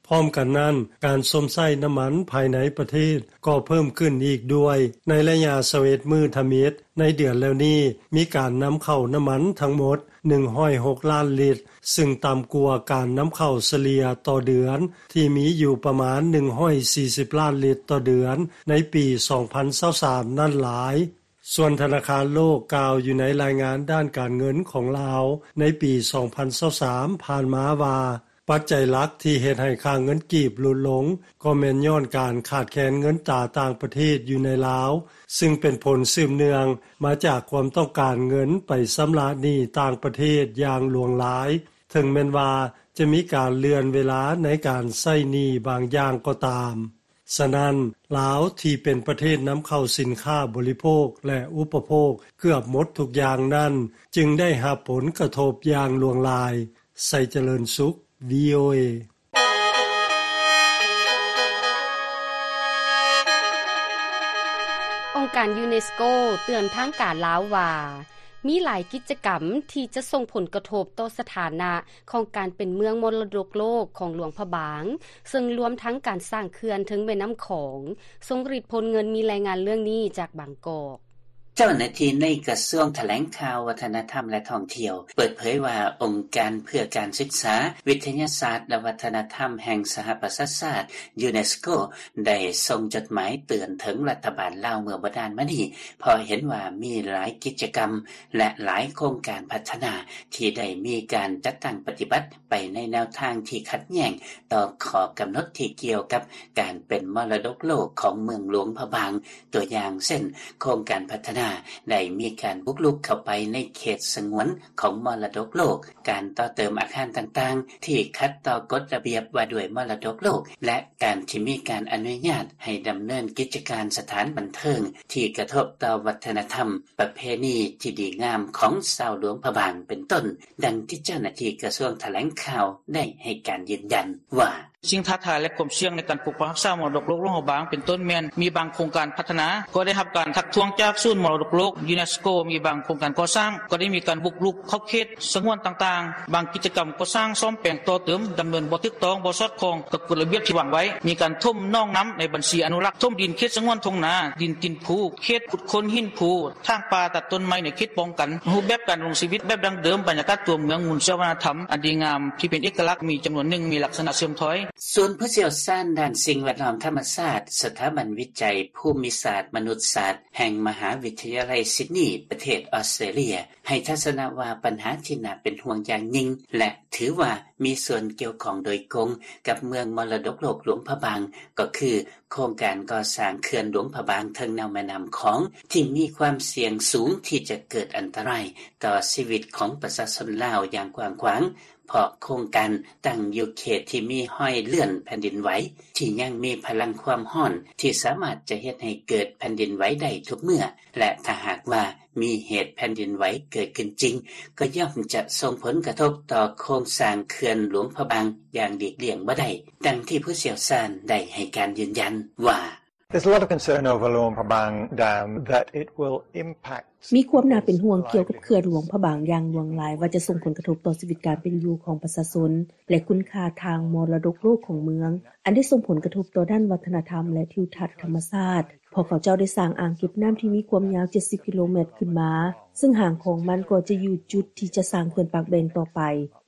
ພ້ອມກັນນັ້ນ, ການຊົມໃຊ້ນ້ຳມັນພາຍໃນປະເທດກໍເພີ່ມຂຶ້ນອີກດ້ວຍ. ໃນໄລຍະຊາວເອັດມື້ທຳອິດໃນເດືອນແລ້ວນີ້, ມີການນຳເຂົ້ານ້ຳມັນທັງໝົດໜຶ່ງຮ້ອຍຫົກລ້ານລິດ, ຊຶ່ງຕ່ຳກວ່າການນຳເຂົ້າສະເລ່ຍຕໍ່ເດືອນທີ່ມີຢູ່ປະມານໜຶ່ງຮ້ອຍສີ່ສິບລ້ານລິດຕໍ່ເດືອນໃນປີສອງພັນຊາວສາມນັ້ນຫຼາຍ. ສ່ວນທະນາຄານໂລກກ່າວຢູ່ໃນລາຍງານດ້ານການເງິນຂອງລາວໃນປີສອງພັນຊາວສາມຜ່ານມາວ່າ, ປັດໄຈຫຼັກທີ່ເຮັດໃຫ້ຄ່າເງິນກີບຫຼຸດລົງ ກໍແມ່ນຍ້ອນການຂາດແຄນເງິນຕາຕ່າງປະເທດຢູ່ໃນລາວ, ຊຶ່ງເປັນຜົນສືບເນື່ອງມາຈາກຄວາມຕ້ອງການເງິນໄປຊຳລະໜີ້ຕ່າງປະເທດຢ່າງຫຼວງຫຼາຍ, ເຖິງແມ່ນວ່າຈະມີການເລື່ອນເວລາໃນການໃຊ້ໜີ້ບາງຢ່າງກໍຕາມ. ສະນັ້ນ, ລາວທີ່ເປັນປະເທດນຳເຂົ້າສິນຄ້າບໍລິໂພກ ແລະ ອຸປະໂພກເກືອບໝົດທຸກຢ່າງນັ້ນ, ຈຶ່ງໄດ້ຮັບຜົນກະທົບຢ່າງຫຼວງຫຼາຍ. ໄຊຈະເລີນສຸກ ວີໂອເອ. ອົງການຢູເນສະໂກເຕືອນທາງການລາວວ່າ ມີຫຼາຍກິດຈະກຳທີ່ຈະສົ່ງຜົນກະທົບຕໍ່ສະຖານະຂອງການເປັນເມືອງມໍລະດົກໂລກຂອງຫຼວງພະບາງ, ເຊິ່ງລວມທັງການສ້າງເຂື່ອນເທິງແມ່ນ້ຳຂອງ. ຊົງລິດ ພົນເງິນ ມີລາຍງານເລື່ອງນີ້ຈາກບາງກອກ. ເຈົ້າໜ້າທີ່ໃນກະຊວງຖະແຫຼງຂ່າວ, ວັດທະນະທຳ ແລະ ທ່ອງທ່ຽວ ເປີດເຜີຍວ່າ ອົງການເພື່ອການສຶກສາ, ວິທະຍາສາດ ແລະ ວັດທະນະທຳແຫ່ງສະຫະປະຊາຊາດ ຢູເນສໂກ ໄດ້ສົ່ງຈົດໝາຍເຕືອນເຖິງລັດຖະບານລາວເມື່ອບໍ່ນານມານີ້ ເພາະເຫັນວ່າມີຫຼາຍກິດຈະກຳ ແລະ ຫຼາຍໂຄງການພັດທະນາທີ່ໄດ້ມີການຈັດຕັ້ງປະຕິບັດໄປໃນແນວທາງທີ່ຂັດແຍ້ງຕໍ່ຂໍ້ກຳນົດທີ່ກ່ຽວກັບການເປັນມໍລະດົກໂລກຂອງເມືອງຫຼວງພະບາງ. ຕົວຢ່າງເຊັ່ນ, ໂຄງການພັດທະນາໄດ້ມີການບຸກລຸກເຂົ້າໄປໃນເຂດສະຫງວນຂອງມໍລະດົກໂລກ, ການຕໍ່ເຕີມອາຄານຕ່າງໆທີ່ຂັດຕໍ່ກົດລະບຽບວ່າດ້ວຍມໍລະດົກໂລກ ແລະ ການທີ່ມີການອະນຸຍາດໃຫ້ດຳເນີນກິດຈະການສະຖານບັນເທີງທີ່ກະທົບຕໍ່ວັດທະນະທຳ ປະເພນີທີ່ດີງາມຂອງຊາວຫຼວງພະບາງເປັນຕົ້ນ, ດັ່ງທີ່ເຈົ້າໜ້າທີ່ກະຊວງຖະແຫຼງຂ່າວໄດ້ໃຫ້ການຢືນຢັນວ່າ: ສິ່ງທ້າທາຍ ແລະ ຄວາມສ່ຽງໃນການປົກປັກຮັກສາມໍລະດົກໂລກຫຼວງພະບາງ ເປັນຕົ້ນແມ່ນມີບາງໂຄງການພັດທະນາ ກໍໄດ້ຮັບການທັກທ້ວງຈາກສູນມໍລະ ລະດົກໂລກ UNESCO ມີບາງໂຄງການກໍ່ສ້າງ ກໍໄດ້ມີການບຸກລຸກເຂົ້າເຂດສະຫງວນຕ່າງໆ, ບາງກິດຈະກຳກໍ່ສ້າງສ້ອມແປງຕໍ່ເຕີມ ດຳເນີນບໍ່ຖືກຕ້ອງ, ບໍ່ສອດຄ່ອງກັບກົດລະບຽບທີ່ວາງໄວ້, ມີການຖົມໜອງນ້ຳໃນບັນຊີອະນຸລັກ, ຖົມດິນເຂດສະຫງວນທົ່ງນາ, ດິນຕີນພູ, ເຂດຂຸດຄົ້ນຫີນພູ, ຖາງປ່າ, ຕັດຕົ້ນໄມ້ໃນເຂດປ້ອງກັນ, ຮູບແບບການດຳລົງຊີວິດແບບດັ້ງເດີມ, ບັນຍາກາດຕົວເມືອງ, ມູນເຊື້ອວັດທະນະທຳອັນດີງາມທີ່ເປັນເອກະລັກ ມີຈຳນວນໜຶ່ງມີລັກສະນະເສື່ອມຖອຍ. ສູນຜູ້ຊ່ຽວຊານດ້ານສິ່ງແວດລ້ອມທຳມະຊາດ ສະຖາບັນວິໄຈພູມິສາດມະນຸດສາດ ແຫ່ງມະຫາວິທະຍາໄລຊິດນີ ປະເທດອອສເຕຣເລຍ ໃຫ້ທັດສະນະວ່າ ບັນຫາທີ່ໜ້າເປັນຫ່ວງຢ່າງຍິ່ງ ແລະ ຖືວ່າມີສ່ວນກ່ຽວຂ້ອງໂດຍກົງກັບເມືອງມໍລະດົກໂລກຫຼວງພະບາງ ກໍຄືໂຄງການກໍ່ສ້າງເຂື່ອນຫຼວງພະບາງເທິງແນວແມ່ນ້ຳຂອງ ທີ່ມີຄວາມສ່ຽງສູງທີ່ຈະເກີດອັນຕະລາຍຕໍ່ຊີວິດຂອງປະຊາຊົນລາວຢ່າງກວ້າງຂວາງ. ເພາະໂຄງການຕັ້ງຢູ່ເຂດທີ່ມີຮອຍເລື່ອນແຜ່ນດິນໄຫວ ທີ່ຍັງມີພະລັງຄວາມຮ້ອນທີ່ສາມາດຈະເຮັດໃຫ້ເກີດແຜ່ນດິນໄຫວໄດ້ທຸກເມື່ອ ແລະ ຖ້າຫາກວ່າມີເຫດແຜ່ນດິນໄຫວເກີດຂຶ້ນຈິງ ກໍຍ່ອມຈະສົ່ງຜົນກະທົບຕໍ່ໂຄງສ້າງເຂື່ອນຫຼວງພະບາງຢ່າງຫຼີກລ່ຽງບໍ່ໄດ້, ດັ່ງທີ່ຜູ້ຊ່ຽວຊານໄດ້ໃຫ້ການຢືນຢັນວ່າ. There's a lot of concern over Luang Prabang Dam that it will impact ມີຄວາມໜ້າເປັນຫ່ວງກ່ຽວກັບເຂື່ອນຫຼວງພະບາງຢ່າງຫຼວງຫຼາຍ ວ່າຈະສົ່ງຜົນກະທົບຕໍ່ຊີວິດການເປັນຢູ່ຂອງປະຊາຊົນ ແລະ ຄຸນຄ່າທາງມໍລະດົກໂລກຂອງເມືອງ, ອັນໄດ້ສົ່ງຜົນກະທົບຕໍ່ດ້ານວັດທະນະທຳ ແລະ ທິວທັດທຳມະຊາດ, ເພາະເຂົາເຈົ້າໄດ້ສ້າງອ່າງເກັບນ້ຳທີ່ມີຄວາມຍາວເຈັດສິບກິໂລແມັດຂຶ້ນມາ, ເຊິ່ງຫາງຂອງມັນກໍຈະຢູ່ຈຸດທີ່ຈະສ້າງເຂື່ອນປາກແບງຕໍ່ໄປ.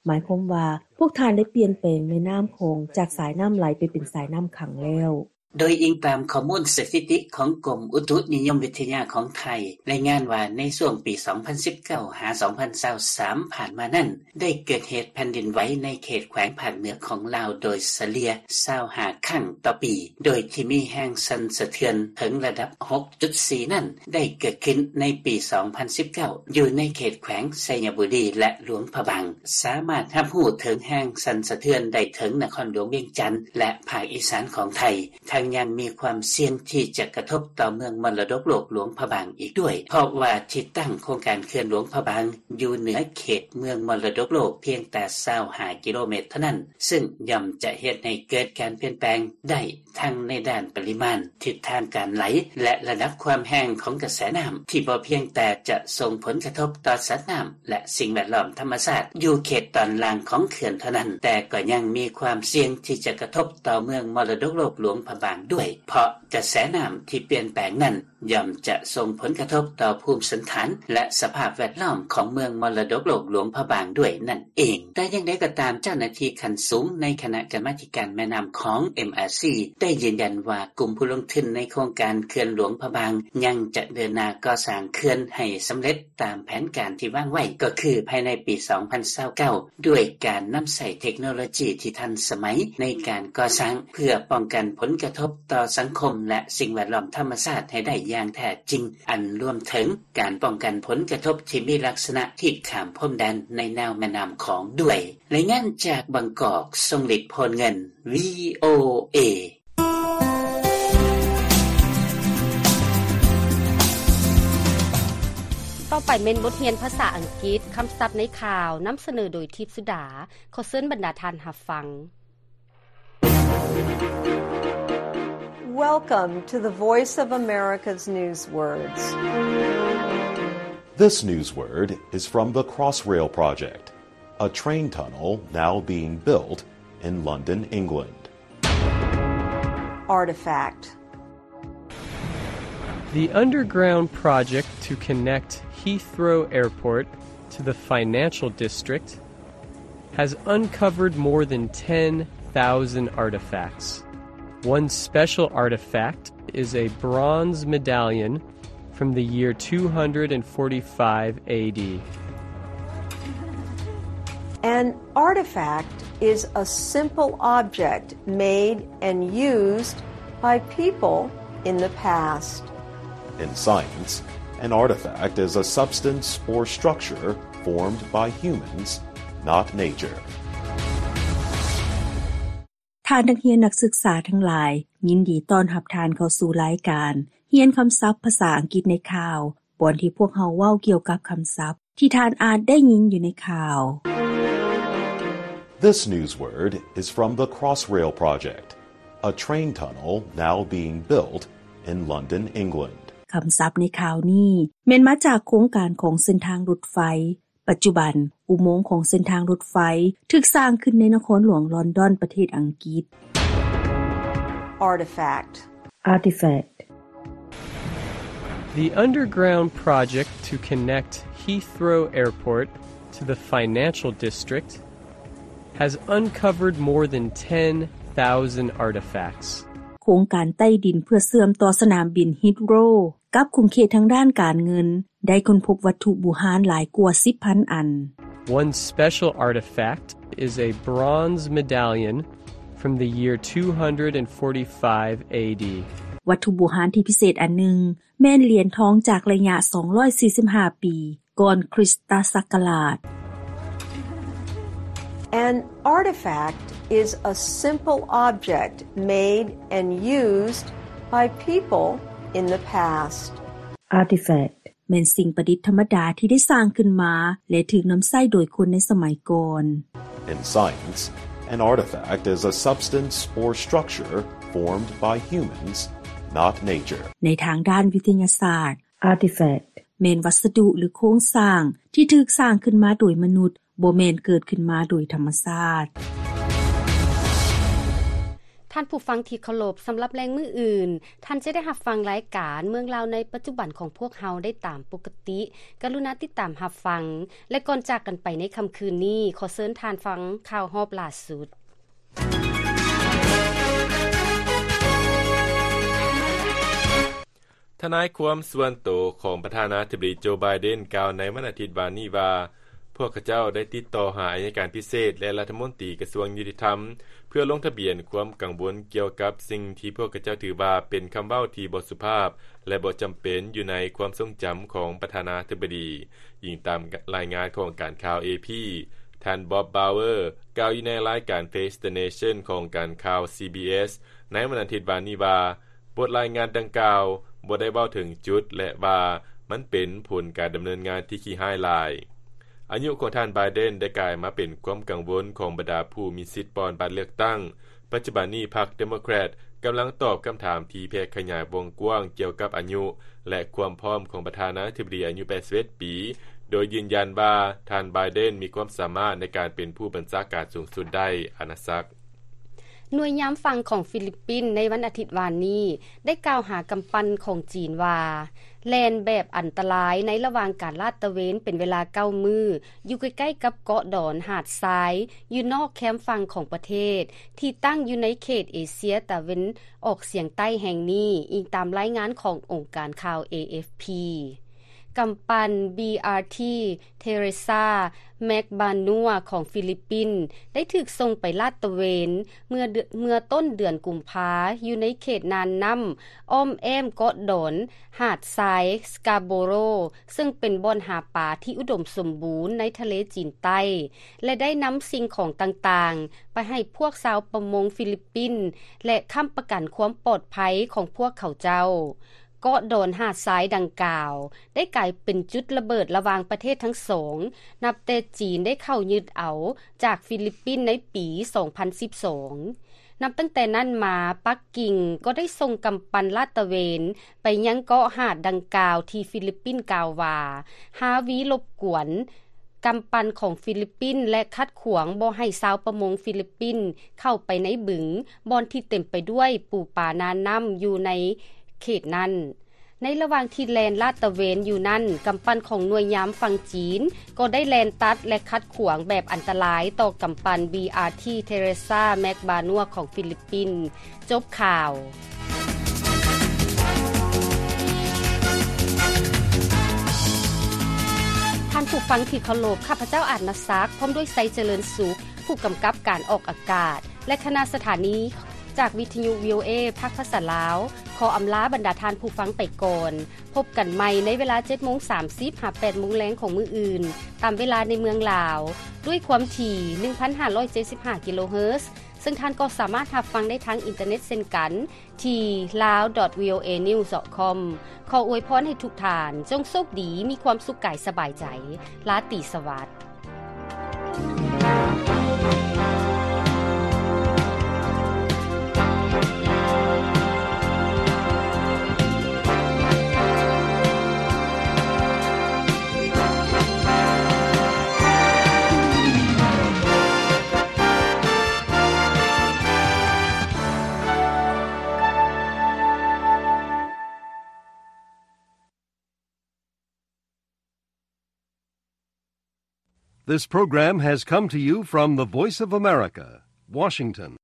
ໝາຍຄວາມວ່າ ພວກທ່ານໄດ້ປ່ຽນແປງແມ່ນ້ຳຂອງຈາກສາຍນ້ຳໄຫຼໄປເປັນສາຍນ້ຳຂັງແລ້ວ. ໂດຍອີງຕາມຂໍ້ມູນສະຖິຕິຂອງກົມອຸຕຸນິຍົມວິທະຍາຂອງໄທ ລາຍງານວ່າໃນຊ່ວງປີສອງພັນສິບເກົ້າຫາສອງພັນຊາວສາມຜ່ານມານັ້ນ ໄດ້ເກີດເຫດແຜ່ນດິນໄຫວໃນເຂດແຂວງພາກເໜືອຂອງລາວໂດຍສະເລ່ຍຊາວຫ້າຄັ້ງຕໍ່ປີ, ໂດຍທີ່ມີແຮງສັ່ນສະເທືອນເຖິງລະດັບຫົກຈຸດສີ່ນັ້ນ ໄດ້ເກີດຂຶ້ນໃນປີສອງພັນສິບເກົ້າ ຢູ່ໃນເຂດແຂວງໄຊຍະບູລີ ແລະ ຫຼວງພະບາງ, ສາມາດຮັບຮູ້ເຖິງແຮງສັ່ນສະເທືອນໄດ້ເຖິງນະຄອນຫຼວງວຽງຈັນ ແລະ ພາກອີສານຂອງໄທ. ທັງຍັງມີຄວາມສ່ຽງທີ່ຈະກະທົບຕໍ່ເມືອງມໍລະດົກໂລກຫຼວງພະບາງອີກດ້ວຍ, ເພາະວ່າທີ່ຕັ້ງໂຄງການເຂື່ອນຫຼວງພະບາງຢູ່ເໜືອເຂດເມືອງມໍລະດົກໂລກພຽງແຕ່ຊາວຫ້າກິໂລແມັດເທົ່ານັ້ນ, ເຊິ່ງຍ່ອມຈະເຮັດໃຫ້ເກີດການປ່ຽນແປງໄດ້ທັງໃນດ້ານປະລິມານ, ທິດທາງການໄຫຼ ແລະ ລະດັບຄວາມແຮງຂອງກະແສນ້ຳ ທີ່ບໍ່ພຽງແຕ່ຈະສົ່ງຜົນກະທົບຕໍ່ສັດນ້ຳ ແລະ ສິ່ງແວດລ້ອມທຳມະຊາດຢູ່ເຂດຕອນລ່າງຂອງເຂື່ອນເທົ່ານັ້ນ, ແຕ່ກໍຍັງມີຄວາມສ່ຽງທີ່ຈະກະທົບ ຕໍ່ເມືອງມໍລະດົກໂລກຫຼວງພະບາງດ້ວຍ, ເພາະກະແສນ້ຳທີ່ປ່ຽນແປງນັ້ນ ຍ່ອມຈະສົ່ງຜົນກະທົບຕໍ່ພູມສັນຖານ ແລະ ສະພາບແວດລ້ອມຂອງເມືອງມໍລະດົກໂລກຫຼວງພະບາງດ້ວຍນັ້ນເອງ. ແຕ່ຢ່າງໃດກໍຕາມ, ເຈົ້າໜ້າທີ່ຂັ້ນສູງໃນຄະນະກຳມາທິການແມ່ນ້ຳຂອງ ເອັມອາຊີ ໄດ້ຢືນຢັນວ່າ ກຸ່ມຜູ້ລົງທຶນໃນໂຄງການເຂື່ອນຫຼວງພະບາງ ຍັງຈະເດີນໜ້າກໍ່ສ້າງເຂື່ອນໃຫ້ສຳເລັດ ຕາມແຜນການທີ່ວາງໄວ້ ກໍຄືພາຍໃນປີສອງພັນຊາວເກົ້າ ດ້ວຍການນຳໃຊ້ເທັກໂນໂລຈີທີ່ທັນສະໄໝໃນການກໍ່ສ້າງ ເພື່ອປ້ອງກັນຜົນກະທົບຕໍ່ສັງຄົມ ແລະ ສິ່ງແວດລ້ອມທຳມະຊາດໃຫ້ໄດ້ຢ່າງແທ້ຈິງ, ອັນລວມເຖິງການປ້ອງກັນຜົນກະທົບທີ່ມີລັກສະນະທີ່ຂ້າມພົມແດນໃນແນວແມ່ນ້ຳຂອງດ້ວຍ. ລາຍງານຈາກບາງກອກ, ຊົງລິດ ໂພນເງິນ, ວີໂອເອ. ຕໍ່ໄປແມ່ນບົດຮຽນພາສາອັງກິດ, ຄຳສັບໃນຂ່າວ, ນຳສະເໜີໂດຍ ທິບສຸດາ. ຂໍເຊີນບັນດາທ່ານຮັບຟັງ. Welcome to the Voice of America's News Words. This news word is from the Crossrail Project. A train tunnel now being built in London, England. Artifact. The underground project to connect Heathrow Airport to the financial district has uncovered more than ten thousand artifacts. One special artifact is a bronze medallion from the year two hundred forty-five A D. An artifact is a simple object made and used by people in the past. In science, an artifact is a substance or structure formed by humans, not nature. ທ່ານນັກຮຽນນັກສຶກສາທັງຫຼາຍ, ຍິນດີຕ້ອນຮັບທ່ານເຂົ້າສູ່ລາຍການຮຽນຄຳສັບພາສາອັງກິດໃນຂ່າວ, ບ່ອນທີ່ພວກເຮົາເວົ້າກ່ຽວກັບຄຳສັບທີ່ທ່ານອາດໄດ້ຍິນຢູ່ໃນຂ່າວ. This news word is from the Crossrail Project, a train tunnel now being built in London, England. ຄຳສັບໃນຂ່າວນີ້ແມ່ນມາຈາກໂຄງການຂອງເສັ້ນທາງລົດໄຟ. ປັດຈຸບັນ, ອຸໂມງຂອງເສັ້ນທາງລົດໄຟຖືກສ້າງຂຶ້ນໃນນະຄອນຫຼວງລອນດອນ ປະເທດອັງກິດ. Artifact. Artifact. The underground project to connect Heathrow Airport to the financial district has uncovered more than ten thousand artifacts. ໂຄງການໃຕ້ດິນເພື່ອເຊື່ອມຕໍ່ສະໜາມບິນ Heathrow ກັບຂົງເຂດທາງດ້ານການເງິນ ໄດ້ຄົ້ນພົບວັດຖຸບູຮານຫຼາຍກວ່າສິບພັນອັນ. One special artifact is a bronze medallion from the year two hundred forty-five A D. ວັດຖຸບູຮານທີ່ພິເສດອັນໜຶ່ງ ແມ່ນຫຼຽນທອງຈາກໄລຍະສອງຮ້ອຍສີ່ສິບຫ້າປີ ກ່ອນຄຣິສຕະສັກກະລາດ. An artifact is a simple object made and used by people in the past. Artifact ແມ່ນສິ່ງປະດິດທຳມະດາທີ່ໄດ້ສ້າງຂຶ້ນມາ ແລະ ຖືກນຳໃຊ້ໂດຍຄົນໃນສະໄໝກ່ອນ. In science, an artifact is a substance or structure formed by humans, not nature. ໃນທາງດ້ານວິທະຍາສາດ, artifact ແມ່ນວັດສະດຸ ຫຼື ໂຄງສ້າງທີ່ຖືກສ້າງຂຶ້ນມາໂດຍມະນຸດ, ບໍ່ແມ່ນເກີດຂຶ້ນມາໂດຍທຳມະຊາດ. ທ່ານຜູ້ຟັງທີ່ເຄົາລົບ, ສຳລັບແລງມື້ອື່ນ, ທ່ານຈະໄດ້ຮັບຟັງລາຍການເມືອງລາວໃນປັດຈຸບັນຂອງພວກເຮົາໄດ້ຕາມປົກກະຕິ. ກະລຸນາຕິດຕາມຮັບຟັງ, ແລະ ກ່ອນຈາກກັນໄປໃນຄ່ຳຄືນນີ້, ຂໍເຊີນທ່ານຟັງຂ່າວຮອບລ່າສຸດ. ທະນາຍຄວາມສ່ວນໂຕຂອງປະທານາທິບໍດີໂຈ ໄບເດັນ ກ່າວໃນວັນອາທິດວານນີ້ວ່າ, ພວກເຂົາເຈົ້າໄດ້ຕິດຕໍ່ຫາອັຍການພິເສດ ແລະ ລັດຖະມົນຕີກະຊວງຍຸຕິທຳ ເພື່ອລົງທະບຽນຄວາມກັງວົນກ່ຽວກັບສິ່ງທີ່ພວກເຂົາເຈົ້າຖືວ່າເປັນຄຳເວົ້າທີ່ບໍ່ສຸພາບ ແລະ ບໍ່ຈຳເປັນຢູ່ໃນຄວາມຊົງຈຳຂອງປະທານາທິບໍດີ. ອີງຕາມລາຍງານຂອງການຂ່າວ ເອ ພີ, ທ່ານ Bob Bauer ກ່າວຢູ່ໃນລາຍການ Face the Nation ຂອງການຂ່າວ ຊີບີເອສ ໃນວັນອາທິດວານນີ້ວ່າ, ບົດລາຍງານດັ່ງກ່າວບໍ່ໄດ້ເວົ້າເຖິງຈຸດ ແລະ ວ່າມັນເປັນຜົນການດຳເນີນງານທີ່ຂີ້ຮ້າຍຫຼາຍ. ອາຍຸຂອງທ່ານ ໄບເດັນ ໄດ້ກາຍມາເປັນຄວາມກັງວົນຂອງບັນດາຜູ້ມີສິດປ່ອນບັດເລືອກຕັ້ງ. ປັດຈຸບັນນີ້ ພັກ Democrat ກຳລັງຕອບຄຳຖາມທີ່ແຜ່ຂະຫຍາຍວົງກວ້າງກ່ຽວກັບອາຍຸ ແລະ ຄວາມພ້ອມຂອງປະທານາທິບໍດີອາຍຸແປດສິບເອັດປີ, ໂດຍຢືນຢັນວ່າທ່ານ ໄບເດັນ ມີຄວາມສາມາດໃນການເປັນຜູ້ບັນຊາການສູງສຸດໄດ້. ອານາສັກ. ໜ່ວຍຍາມຝັ່ງຂອງຟີລິບປິນໃນວັນອາທິດວານນີ້ ໄດ້ກ່າວຫາກຳປັ່ນຂອງຈີນວ່າ ແລ່ນແບບອັນຕະລາຍໃນລະຫວ່າງການລາດຕະເວນເປັນເວລາເກົ້າມື້ ຢູ່ໃກ້ໆກັບເກາະດອນຫາດຊາຍ ຢູ່ນອກແຄມຝັ່ງຂອງປະເທດ ທີ່ຕັ້ງຢູ່ໃນເຂດເອເຊຍຕາເວັນອອກສຽງໃຕ້ແຫ່ງນີ້, ອີງຕາມລາຍງານຂອງອົງການຂ່າວ ເອ ເອັຟ ພີ. ກຳປັ່ນ ບີ ອາ ທີ ເທເຣຊາ ແມັກບານົວ ຂອງຟີລິບປິນ ໄດ້ຖືກສົ່ງໄປລາດຕະເວນເມື່ອເດືອນ ເມື່ອຕົ້ນເດືອນກຸມພາ ຢູ່ໃນເຂດນ່ານນ້ຳອ້ອມແອ້ມເກາະດອນຫາດຊາຍ ສະກາໂບໂຣ ເຊິ່ງເປັນບ່ອນຫາປາທີ່ອຸດົມສົມບູນໃນທະເລຈີນໃຕ້ ແລະ ໄດ້ນຳສິ່ງຂອງຕ່າງໆໄປໃຫ້ພວກຊາວປະມົງຟີລິບປິນ ແລະ ຄ້ຳປະກັນຄວາມປອດໄພຂອງພວກເຂົາເຈົ້າ. ເກາະດອນຫາດຊາຍດັ່ງກ່າວ ໄດ້ກາຍເປັນຈຸດລະເບີດລະຫວ່າງປະເທດທັງສອງ ນັບແຕ່ຈີນໄດ້ເຂົ້າຍຶດເອົາຈາກຟີລິບປິນໃນປີສອງພັນສິບສອງ. ນັບຕັ້ງແຕ່ນັ້ນມາ, ປັກກິ່ງກໍໄດ້ສົ່ງກຳປັ່ນລາດຕະເວນໄປຍັງເກາະຫາດດັ່ງກ່າວ ທີ່ຟີລິບປິນກ່າວວ່າ ຮາວີລົບກວນ. ກຳປັ່ນຂອງຟີລິບປິນ ແລະ ຂັດຂວາງບໍ່ໃຫ້ຊາວປະມົງຟີລິບປິນເຂົ້າໄປໃນບຶງ ບ່ອນທີ່ເຕັມໄປດ້ວຍປູປາໜ້ານ້ຳຢູ່ໃນເຂດນັ້ນ. ໃນລະຫວ່າງທີ່ແລ່ນລາດຕະເວນຢູ່ນັ້ນ, ກຳປັ່ນຂອງໜ່ວຍຍາມຝັ່ງຈີນກໍໄດ້ແລ່ນຕັດ ແລະ ຂັດຂວາງແບບອັນຕະລາຍຕໍ່ກຳປັ່ນ ບີ ອາ ທີ ເທເຣຊາ ແມັກບານົວ ຂອງຟີລິບປິນ. ຈົບຂ່າວ. ທ່ານຜູ້ຟັງທີ່ເຄົາລົບ, ຂ້າພະເຈົ້າ ອາດນະສັກ ພ້ອມດ້ວຍ ໄຊຈະເລີນສຸກ ຜູ້ກຳກັບການອອກອາກາດ ແລະ ຄະນະສະຖານີຈາກວິທະຍຸ ວີ ໂອ ເອ ພາກພາສາລາວ ຂໍອຳລາບັນດາທ່ານຜູ້ຟັງໄປກ່ອນ. ພົບກັນໃໝ່ໃນເວລາເຈັດໂມງສາມສິບ ຫາ ແປດໂມງແລງຂອງມື້ອື່ນ ຕາມເວລາໃນເມືອງລາວ ດ້ວຍຄວາມຖີ່ ໜຶ່ງພັນຫ້າຮ້ອຍເຈັດສິບຫ້າ ກິໂລເຮີດ, ເຊິ່ງທ່ານກໍສາມາດຮັບຟັງໄດ້ທາງອິນເຕີເນັດເຊັ່ນກັນ ທີ່ ลาว ດອท วี โอ เอ นิวส์ ดอท คอม. ຂໍອວຍພອນໃຫ້ທຸກທ່ານ ຈົ່ງໂຊກດີ, ມີຄວາມສຸກກາຍສະບາຍໃຈ. ລາຕີສະຫວັດ. This program has come to you from the Voice of America, Washington.